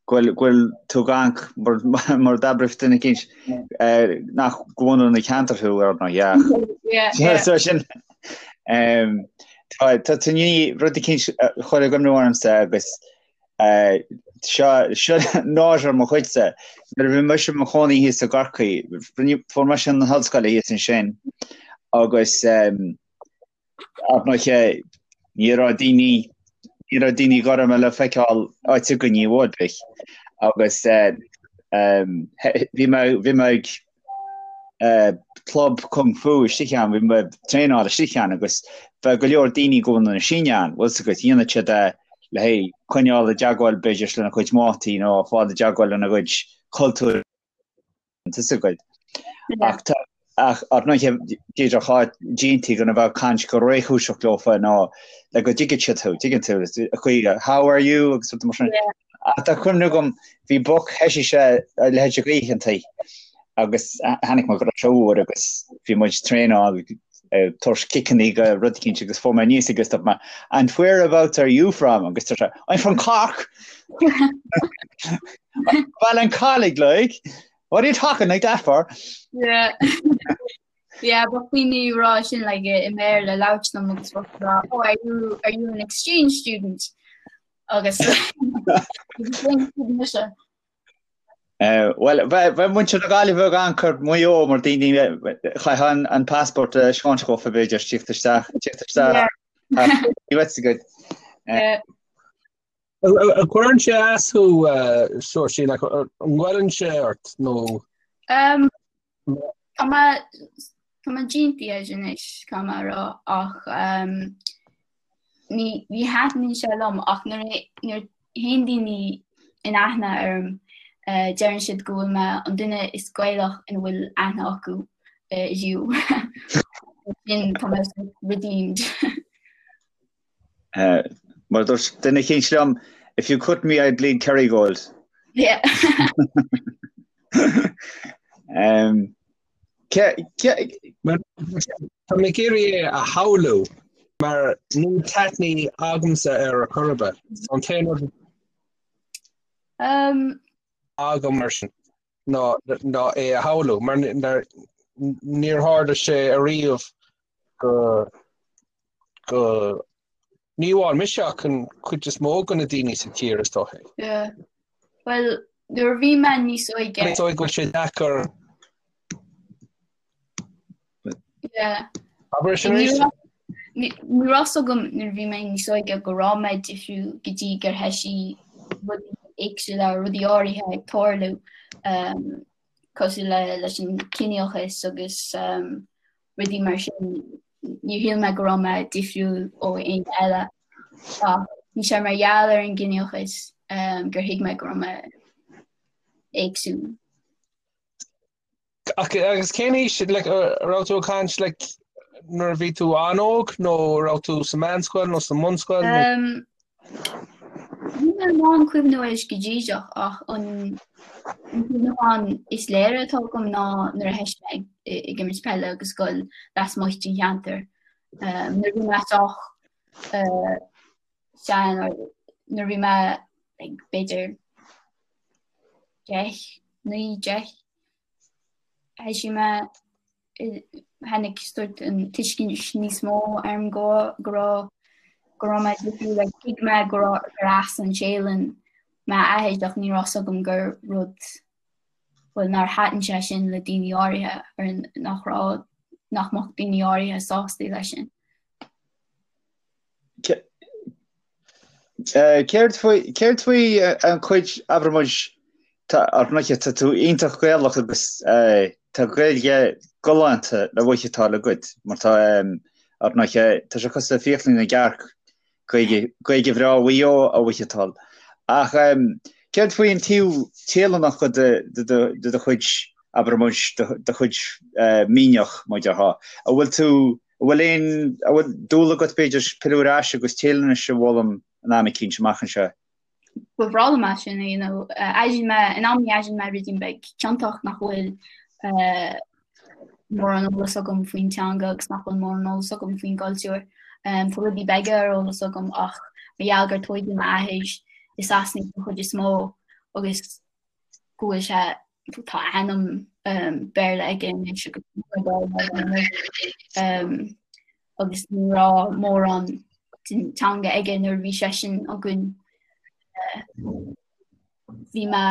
go bhfuil tú ag amharc mar d'abraigh duine eicínt nach de bhunadh na ceantar thú ar ndóigh ach so sin tá tú i ndiaidh rud eicínt a chur i gcuimhne ormsa agus Seo seo náire ar mo chuidse. Nuair a bhí mise i mo chónaí thíos i gCorcaigh, fuair mise an ollscoil thíos ansin agus ar ndóighe ní raibh daoine ní raibh daoine gorma le feiceáil áit againn i bhfad bith agus bhí mé bhí mé ag club kung fu istigh ann, bhí mé ag traenáil istigh ann agus bheadh go leor daoine de bhunadh na Síne ann, bhfuil 's agat, dhéanadh siad é le haghaidh coinneáil i dteagmháil b'fhéidir lena gcuid mátaí nó fáil i dteagmháil lena gcuid cultúir, tá 's agat. Ach tá, ach ar ndóighe b'fhéidir chá dtéití chun a bheith ag caint go réchúiseach leofa nó le go dtuigfidh siad thú, tuigeann tú, a chaoi how are you agus rud mar sin. Ach tá cuimhne agam, bhí boc, thoisigh sé a leithéid de oícheantaí agus tháinig mé go raibh sé úr agus bhí muid ag traenáil ag tabhairt ciceannaí go rud eicínt agus fuair mé aníos agus dúirt mé And whereabouts are you from? agus dúirt sé I'm from Cork! Baile an Chollaigh like, what are you talking like that for? Yeah. Yeah, bheadh daoine ag rá sin like i mBéarla labhairt liom agus bheadh rá, oh, are you, are you an exchange student? Agus mise. Bhuel, bheadh muintir na Gaillimhe ag amharc ar Mhaigh Eo mar daoine chaithfeá an passport a thaispeáint dhófa b'fhéidir tíocht isteach, tíocht isteach. Ní bheadh agat. An gcuireann sé as thú, Seoirsín, like, an ngoilleann sé ort nó? Tá mé tá mé déanta air anois, caithfidh mé a rá, ach ní ní thaitníonn sé liom ach nuair a nuair a théann daoine in aithne orm deireann siad go bhfuil mé an duine is Gaelach ina bhfuil aithne acu riamh. Sin tá mé redeemed. Mar dúirt duine eicínt liom, if you cut me I'd bleed Kerrygold. Yeah. um, Tá mé ag iarraidh é a shamhlú mar níl taitní agamsa ar a chor ar bith. An t-aon rud um, agam mar sin ná ná é a shamhlú mar níor tharla sé ariamh go go ní amháin mise ach an chuid is mó de na daoine sa tír is dócha. Yeah. Well, nuair a bhí mé níos óige. Is dóigh go bhfuil sé deacair. Yeah. Abair sin arís. Ní raibh fhios agam nuair a bhí mé níos óige go raibh mé difriúil go dtí gur thoisigh rudaí éagsúla, rudaí áirithe ag tarlú um, cosúil le leis an ciníochas agus um, rudaí mar sin. Níor shíl mé go raibh mé difriúil ó éinne eile ach bhí sé mar gheall ar an gciníochas gur thuig mé go raibh mé éagsúil. Ach agus cén aois like, raibh tú ag caint like, nuair a bhí tú an-óg nó raibh tú sa meánscoil nó sa mbunscoil? Nó... Um, Níl mé in ann cuimhniú air go díreach ach an cuimhneachán is léire atá agam ná nuair a thoisigh mé ag imirt peile agus ag goil lasmuigh den cheantar. Nuair a bhí mé sách sean nuair a bhí mé like b'fhéidir 10, 9, 10, thoisigh mé tháinig sórt an tuiscint níos mó orm go go raibh go raibh mé difriúil like thuig mé go raibh gur as an Téalainn m'athair ach ní raibh fhios agam gur rud bhuel nár thaitin sé sin le daoine áirithe or nach raibh nach mbeadh daoine áirithe sásta leis sin. Céard faoi céard faoi an chuid abair muid ar ndóighe tá tú iontach Gaelach agus tá Gaeilge galánta le mhaitheachtáil agat mar tá ar ndóighe tá sé cosúil le fiaclaí na gcearc Gaeilge Gaeilge bhreá Mhaigh Eo a mhaitheachtáil. Ach céard faoi an taobh Téalannach de de do chuid abair muid do chuid mianach mar a déarfá. An bhfuil tú An bhfuil aon, an bhfuil dúil agat b'fhéidir pilleadh ar ais agus Téalainnis a fhoghlaim in am eicínt amach anseo? Ba bhreá liom é sin a dhéanamh. Airíonn mé, in amannaí airíonn mé ruidín beag ciontach nach bhfuil mórán eolas agam faoin teanga agus nach bhfuil mórán eolas agam faoin gcultúr. Tá rudaí beaga ar eolas agam ach mar gheall gur tóigeadh m'athair i Sasana den chuid is mó agus go bhfuil sé tá ainm Béarla aige anois agus agus ní raibh mórán den teanga aige nuair a bhí seisean againn. Bhí mé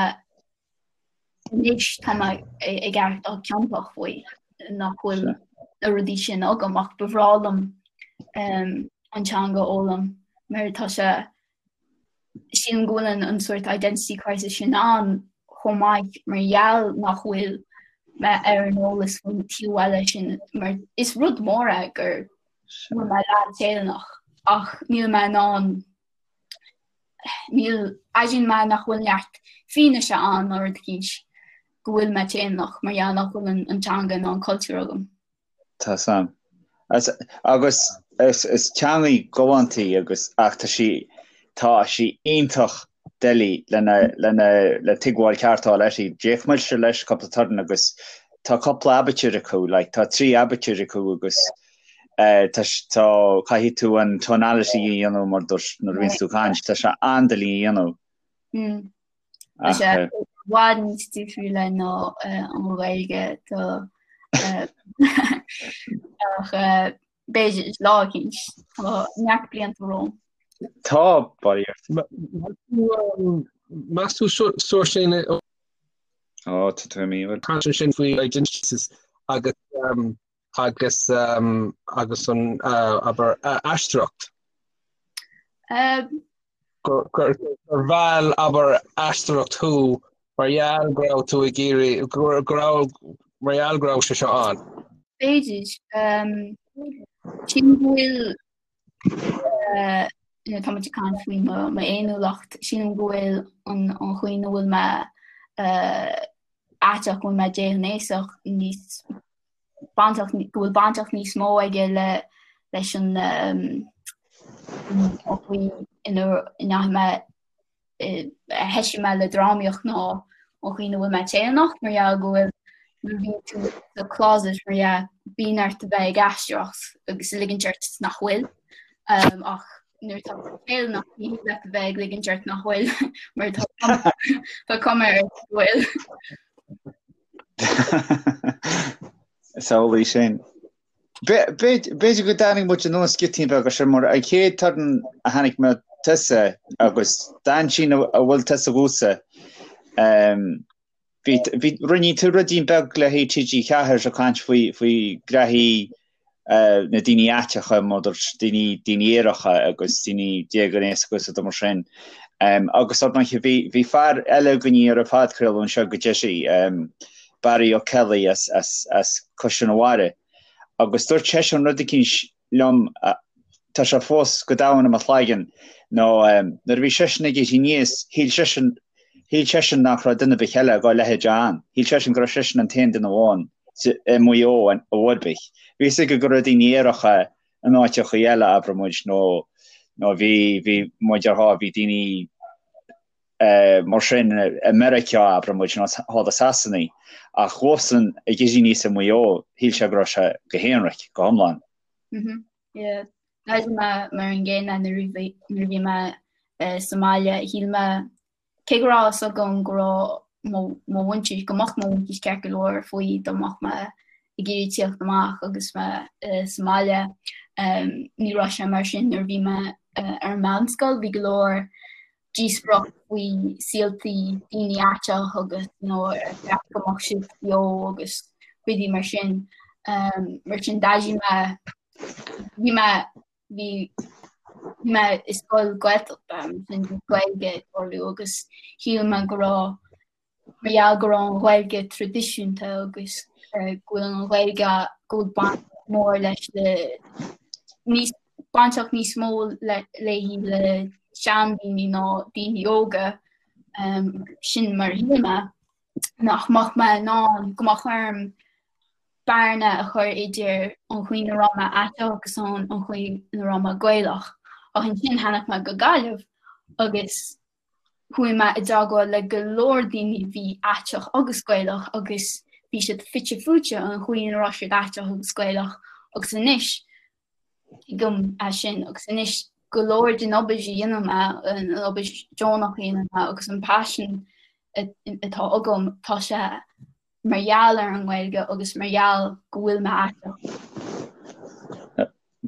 anois tá mé ag aireachtáil ciontach faoi nach bhfuil na rudaí sin agam ach ba bhreá liom an teanga a fhoghlaim mar tá sé Sílim go bhfuil an sórt identity crisis sin ann chomh maith mar gheall nach bhfuil mé ar an eolas faoin taobh eile sin mar is rud mór é go bhfuil mé leath Téalannach ach níl mé in ann níl airíonn mé nach bhfuil neart fianaise ann nó rud eicínt go bhfuil mé Téalannach mar gheall nach bhfuil an teanga ná an cultúr agam. Tá sam. Agus is teangaidh galánta í agus ach tá sí tá sí iontach doiligh lena lena le tuigbheáil ceart a fháil uirthi. D'fhéach mise leis cúpla turn agus tá cúpla aibitir acu, like tá 3 aibitir acu agus eh tá tá caithfidh tú an tonality a dhéanamh mar dúirt nuair a bhíonns tú ag caint, tá sé an-doiligh a dhéanamh. Tá sé i bhfad níos difriúla ná an Ghaeilge tá ach b'fhéidir lá eicínt tá neart blianta romham. Tá, bail ort. Meas tú Seoirsín Ó, tá tú imithe. Caint ansin faoi identities agus. agus agus an abair aisteoireacht? Gur gur mheall abair aisteoireacht thú mar gheall go raibh tú ag iarraidh go raibh mar gheall go raibh sé seo ann. B'fhéidir. Sílim go bhfuil tá muid ag caint faoi m'fhéiniúlacht, sílim go bhfuil an chaoi ina bhfuil mé aiteach, go bhfuil mé déghnéasach níos bainteach, go bhfuil bainteacht níos mó aige le leis an chaoi ina ndeachaigh mé a thoisigh mé le drámaíocht ná an chaoi ina bhfuil mé Téalannach mar gheall go bhfuil nuair a bhíonn tú sa closet mar dhea bíonn ort a bheith ag aisteoireacht agus ag ligint ort nach bhfuil ach nuair atá tú Téalannach ní thig leat a bheith ag ligint ort nach bhfuil mar tá tá cuma ort go bhfuil. Is amhlaidh sin. B'fhéidir go dtáinig muid anuas giotaín beag as sin mar an chéad turn a chonaic mé tusa agus d'aintín a bhfuil tusa dhomhsa bhí bhí rinne tú ruidín beag le haghaidh TG4 ag caint faoi faoi ghraithí na daoine aiteacha mar daoine daoine aeracha agus daoine déghnéasacha agus rudaí mar sin. Agus ar ndóigh bhí bhí fear eile againn ar an phodchraoladh anseo go deireadh Barry O'Kelly as as as Caisleán an Bharraigh agus dúirt seisean rud eicínt liom tá sé fós go domhain i mo chloigeann nó nuair a bhí seisean ag éirí aníos shíl seisean shíl seisean nach raibh duine ar bith eile dhá leithéid ann shíl seisean go raibh seisean an t-aon duine amháin i Maigh Eo ar chor ar bith. Bhí fhios aige go raibh daoine aeracha in áiteachaí eile abraigh muid nó nó bhí bhí muid ar bhí daoine mar sin i Meiriceá, abraigh muid, nó thall i Sasana, ach dhósan ag éirí aníos i Maigh Eo, shíl sé go raibh sé go haonraic, go hiomlán. Mhm, yeah. D'airigh mé mar an gcéanna nuair a bhí nuair a bhí mé sa mbaile, shíl mé, cé go raibh a fhios agam go raibh mo mo mhuintir, go mbeadh mo mhuintir ceart go leor faoi dá mbeadh mé ag iarraidh tíocht amach agus mé sa mbaile, ní raibh sé mar sin nuair a bhí mé ar an meánscoil, bhí go leor díospóireacht faoi saoltaí daoine aiteach agus you know, ar cheart go mbeadh siad beo agus rudaí mar sin. Um, mar sin d'airigh mé bhí mé bhí bhí mé i scoil Gaeltachta mar sin bhí Gaeilge ag tarlú agus shíl mé go raibh mar gheall go raibh an Ghaeilge traidisiúnta agus go bhfuil an Ghaeilge go bhfuil baint mór leis le níos bainteach níos mó le léi le seandaoine ná daoine óga sin mar a shíl mé nach mbeadh mé in ann go mbeadh orm bearna a chur idir an chaoi ina raibh mé aiteach agus an chaoi ina raibh mé Gaelach. Ach ansin tháinig mé go Gaillimh agus Chuaigh mé i dteagmháil le go leor daoine a bhí aiteach agus Gaelach agus bhí siad fite fuaite an chaoi ina raibh siad aiteach agus Gaelach agus anois tuigim é sin agus anois go leor den obair a dhéanann mé, an obair deonach a dhéanann mé agus an paisean atá agam, tá sé mar gheall ar an nGaeilge agus mar gheall go bhfuil mé aiteach.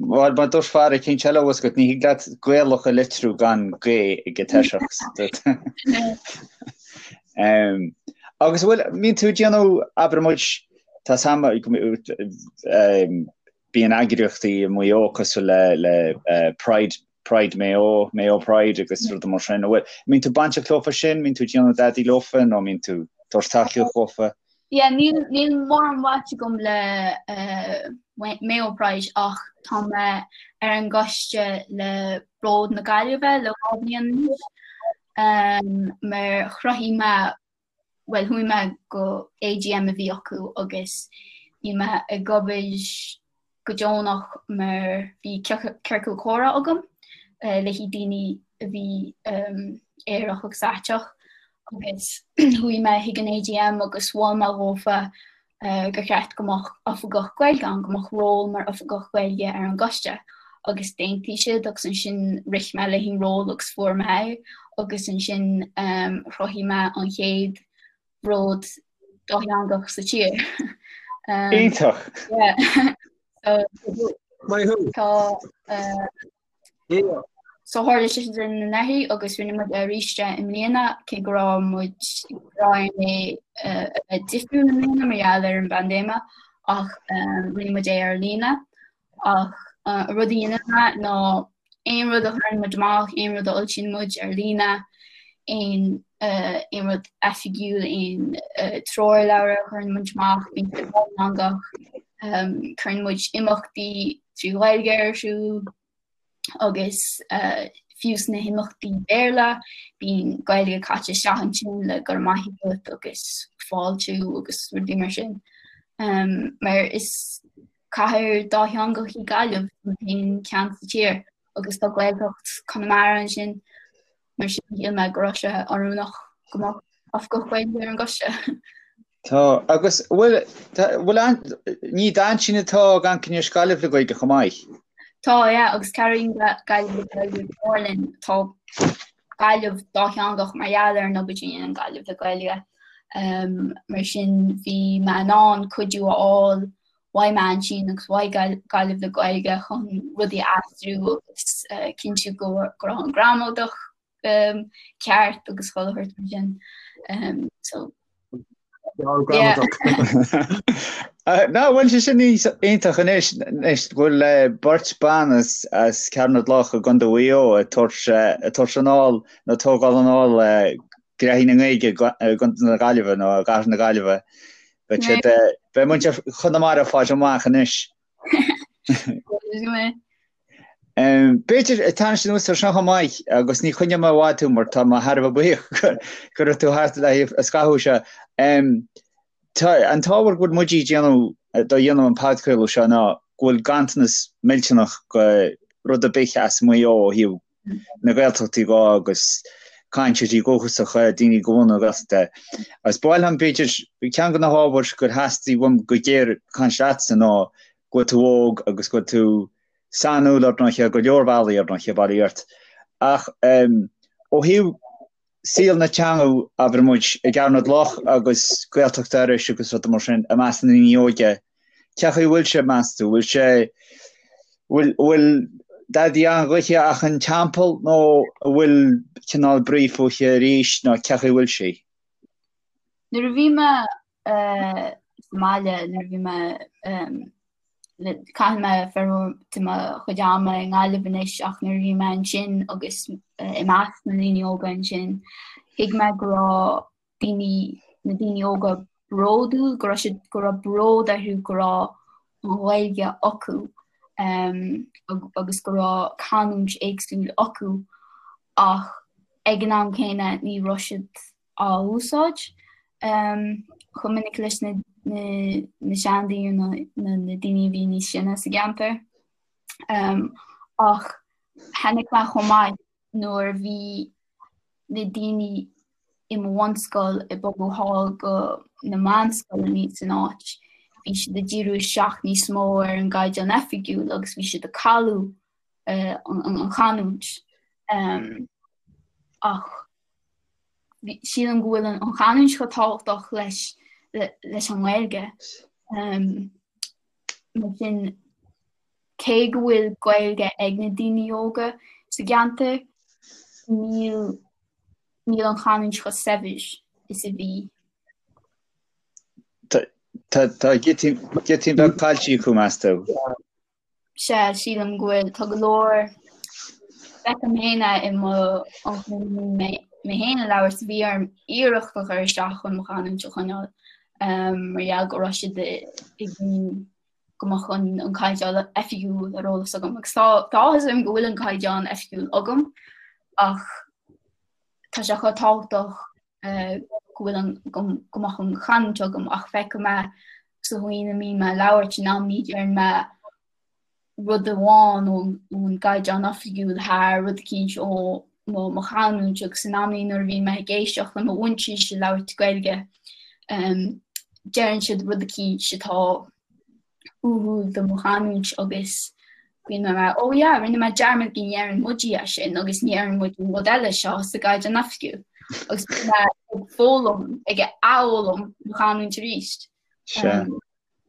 Bhuel, mar dúirt fear eicínt eile thuas agat, ní thig leat Gaelach a litriú gan G ag an toiseacht. Agus bhfuil, mbíonn tú ag déanamh, abair muid, tá sam, bíonn eagraíochtaí i Maigh Eo cosúil le, le Pride Pride Maigh Eo, Mayo Pride agus rudaí mar sin. Bhfuil, mbíonn tú bainteach leofa sin, mbíonn tú ag déanamh dadaí leofa nó mbíonn tú ag tabhairt tacaíocht dhófa? Yeah, níl, níl mórán baint agam le uh, Mayo Pride ach tá mé ar an gcoiste le Bród na Gaillimhe le dhá bhliain anois. Um, mar chruthaigh mé bhuel chuaigh mé go AGM a bhí acu agus bhí mé ag obair go deonach mar bhí ciorcal comhrá agam le haghaidh daoine a bhí aerach agus aiteach agus chuaigh mé chuig an AGM agus mhol mé dhófa gur cheart go mbeadh oifigeach Gaeilge ann, go mbeadh ról mar oifigeach Gaeilge ar an gcoiste agus d'aontaigh siad agus ansin rith mé le an ról agus fuair mé é agus ansin chruthaigh mé an chéad bhród dátheangach sa tír. Iontach! Yeah. So, Maith thú! Tá So tharla sé sin anuraidh agus rinne muid é arís i mbliana cé go raibh muid go raibh é a bheith difriúil i mbliana mar gheall ar an bpaindéime Ach rinne muid é ar líne. Ach an rud a dhéanann mé ná aon rud a chuireann muid amach, aon rud a fhoilsíonn muid ar líne, aon aon rud oifigiúil, aon treoirleabhar a chuireann muid amach, bíonn sé dátheangach. Cuireann muid imeachtaí trí Ghaeilge ar siúl agus fiú sna himeachtaí Béarla, bíonn Gaeilge caite isteach ansin le go raibh maith agat agus fáiltiú agus rudaí mar sin. Mar is Cathair dátheangach í Gaillimh, an t-aon cheann sa tír, agus tá Gaeltacht Chonamara ansin, mar sin shíl mé go raibh sé oiriúnach go mbeadh oifigeach Gaeilge ar an gcoiste. Tá, agus bhfuil, bhfuil an, ní d'aintín atá ag amharc anois Gaillimh le Gaeilge chomh maith? Tá, yeah, agus cabhraíonn Gaillimh le Gaeilge go mór linn. Tá Gaillimh dátheangach mar gheall ar an obair a dhéanann Gaillimh le Gaeilge. Mar sin bhí mé in ann cuidiú a fháil uaidh m'aintín agus uaidh Gaillimh le Gaeilge chun rudaí a aistriú agus cinntiú go raibh an gramadach ceart agus chuile shórt mar sin. So Ná bhfuil sé sin iontach anois anois go bhfuil beirt ban as as Ceathrú na gCloch i gContae Mhaigh Eo ag tabhairt ag tabhairt anall nó tógáil anall gnoithí na nGaeilge i gContae na Gaillimhe nó i gCathair na Gaillimhe. Beidh siad, beidh muintir Chonamara ag fáil amach anois. B'fhéidir, tarraingt anuas ar seo chomh maith, agus ní choinneoidh mé i bhfad tú mar tá mé thar a bheith buíoch go raibh tú thart le haghaidh an scaitheamh seo. Tá an t-ábhar go bhfuil muid ag déanamh, do dhéanamh an podchraoladh seo ná go bhfuil ganntanas millteanach go rud ar bith as Maigh Eo ó thaobh na Gaeltachtaí dhó agus cainteoirí dúchasacha, daoine de bhunadh na Gaeltachta. Agus ba mhaith liom, b'fhéidir, ceann de na hábhair gur theastaigh uaim go géar caint leatsa ná go bhfuil tú óg agus go bhfuil tú sainiúil ar ndóiche, go leor bealaí ar ndóiche, bail ó Dhia ort. Ach ó thaobh saol na teanga, abair muid, i gCeathrú na gCloch agus Gaeltacht Iorrais agus rudaí mar sin, i measc na ndaoine óige, cén chaoi a bhfuil sé, meas tú? Bhfuil sé, bhfuil, bhfuil dadaí an-ghoithe ach an teampall nó an bhfuil cineál brí fúithi arís nó cén chaoi a bhfuil sí? Nuair a bhí mé sa mbaile, nuair a bhí mé Caitheann mé formhór de mo chuid ama i nGaillimh anois ach nuair a bhí mé ansin agus i measc na ndaoine óga ansin, thuig mé go raibh daoine, na daoine óga bródúil, go raibh siad, go raibh bród orthu go raibh an Ghaeilge acu agus go raibh canúint éagsúil acu ach ag an am céanna ní raibh siad á úsáid chomh minic leis na seandaoine nó na daoine a bhí níos sine sa gceantar. Ach chonaic mé chomh maith nuair a bhí na daoine i mo bhunscoil ag bogadh thall go na meánscoileanna san áit, bhí siad ag díriú isteach níos mó ar an gcaighdeán oifigiúil agus bhí siad ag cailleadh an chanúint. Ach Sílim go bhfuil an chanúint chomh tábhachtach leis leis an nGaeilge. Mar sin, cé go bhfuil Gaeilge ag na daoine óga sa gceantar, níl níl an chanúint chomh saibhir is a bhí. Tá giotaí beag caillte acu, meas tú? Sea, sílim go bhfuil. Tá go leor, feicim féin é i mo mé féin ag labhairt, bhí orm iarracht a chur isteach chun mo chanúint a choinneáil mar gheall go raibh siad ag go mbeadh an caighdeán oifigiúil ar eolas agam. Agus tá áthas orm go bhfuil an caighdeán oifigiúil agam ach tá sé chomh tábhachtach go bhfuil an go mbeadh an chanúint agam ach feicim é sa chaoi a mbím ag labhairt in amannaí deireann mé rud amháin ón gcaighdeán oifigiúil thar rud eicínt ó mo chanúint agus in amannaí nuair a bhíonn mé ag éisteacht le mo mhuintir ag labhairt Gaeilge deireann siad rud eicínt atá uathúil do mo chanúint agus bíonn mé mar oh yeah rinne mé dearmad go ndeireann muid é sin agus ní deireann muid an rud eile seo sa gcaighdeán oifigiúil agus bíonn mé ag foghlaim ag athfhoghlaim mo chanúint arís.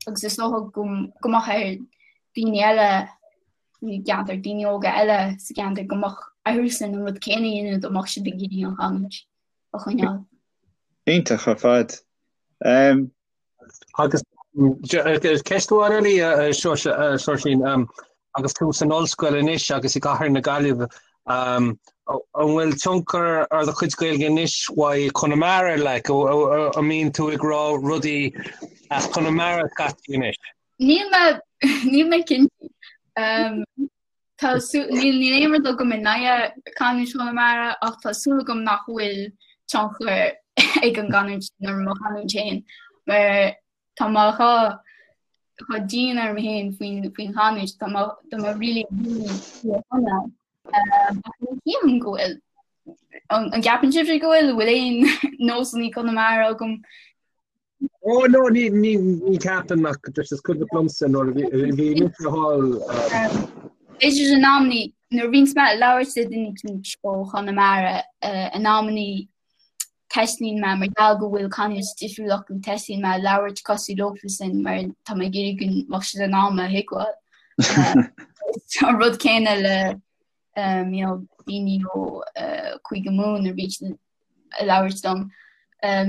Agus is dócha go go mbeadh ar daoine eile i gceantar, daoine óga eile sa gceantar go mbeadh orthusan an rud céanna a dhéanamh dá mbeadh siad ag iarraidh an chanúint a choinneáil. Iontach ar fad. Agus. Ceist amháin eile a Seoirsín, agus tú san ollscoil anois agus i gcathair na Gaillimhe, an bhfuil tionchar ar do chuid Gaeilge anois uaidh Conamara, like, an mbíonn tú ag rá rudaí as Conamara scaití anois? Níl mé, níl mé cinnte. Tá níl níl aon rud agam in aghaidh canúint Chonamara ach tá súil agam nach bhfuil tionchar ag an gcanúint sin ar mo chanúint féin mar tá mé chomh chomh dian orm féin faoin faoin chanúint tá mé tá mé really really fíorchonamh. Ach ní shílim go bhfuil. An an gceapann sibhse go bhfuil? Bhfuil aon nósanna Conamara agam? Ó no ní ní ní ceapaim ach just is cuimhin liomsa nuair a bhí bhí mise thall. B'fhéidir in amannaí nuair a bhíonns mé ag labhairt le duine eicínt ó Chonamara in amannaí teastaíonn mé mar gheall go bhfuil canúint difriúil acu teastaíonn mé labhairt cosúil leofasan mar tá mé ag iarraidh go mbeadh siad in ann mé a thuigbheáil. An rud céanna le you know daoine ó Cúige Mumhan nuair a bhíonn siad ag labhairt liom.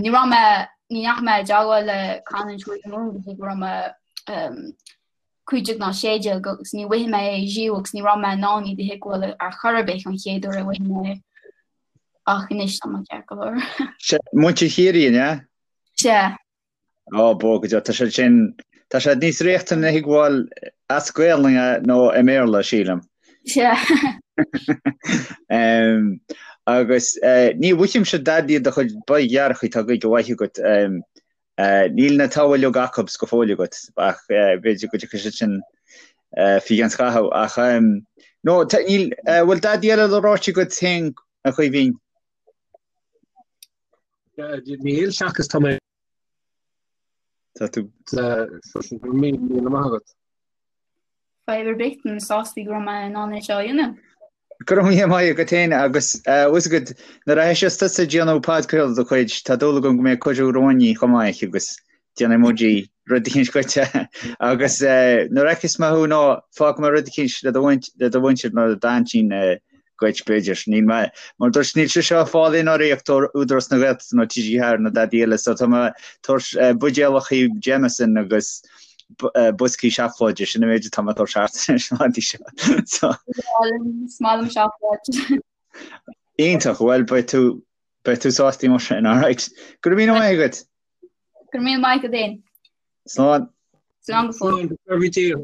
Ní raibh mé, ní ndeachaigh mé i dteagmháil le canúint Chúige Mumhan go dtí go raibh mé 15 nó 16 agus ní bhfaighidh mé é riamh agus ní raibh mé in ann iad a thuigbheáil ar chor ar bith an chéad uair a bhfaighidh mé é. Ach anois tá mé ceart go leor. Sea, muintir Chiarraí, an ea? Sea. Ó, bó go deo, tá siad sin, tá siad níos riachtanaí a thuigbheáil as Gaelainn nó i mBéarla, sílim. Sea. Agus ní mhoithímse dadaí do chuid boigdhearcaí, tá Gaeilge mhaith agat. Níl na togha uilig acu go fóill agat, ach b'fhéidir go dtiocfaidh siad sin faoi cheann scaitheamh. Ach no, níl, bhfuil dadaí eile le ráite agat féin, a Chaoimhín? Níl, seachas tá mé. Tá tú. Go raibh míle maith agat. Fadhb ar bith, tá mé sásta go raibh mé in ann é seo a dhéanamh. Go raibh míle maith agat féin agus bhfuil a fhios agat nuair a thoiseos tusa ag déanamh podchraoladh de do chuid, tá dúil agam go mbeidh cuireadh romhainn chomh maith agus déanfaidh muid rud eicínt dhuit agus nuair a fheicfeas mé thú nó fágfaidh mé rud eicínt le do mhuintir nó le d'aintín dhuit, b'fhéidir. Níl mé, mar dúirt, níl sé seo ag fáil aon urraíocht ó Údarás na Gaeltachta nó TG4 nó dadaí eile, so tá mé ag tabhairt buidéalachaí Jameson agus boscaí seacláide, sin an méid atá mé ag tabhairt thart anois an lá seo. So. Is maith liom seacláid. Iontach, bhuel beidh tú, beidh tú sásta mar sin, alright. Go raibh míle maith agat. Go raibh míle maith agat féin. Slán. Slán go fóill. Slán, go raibh Dia.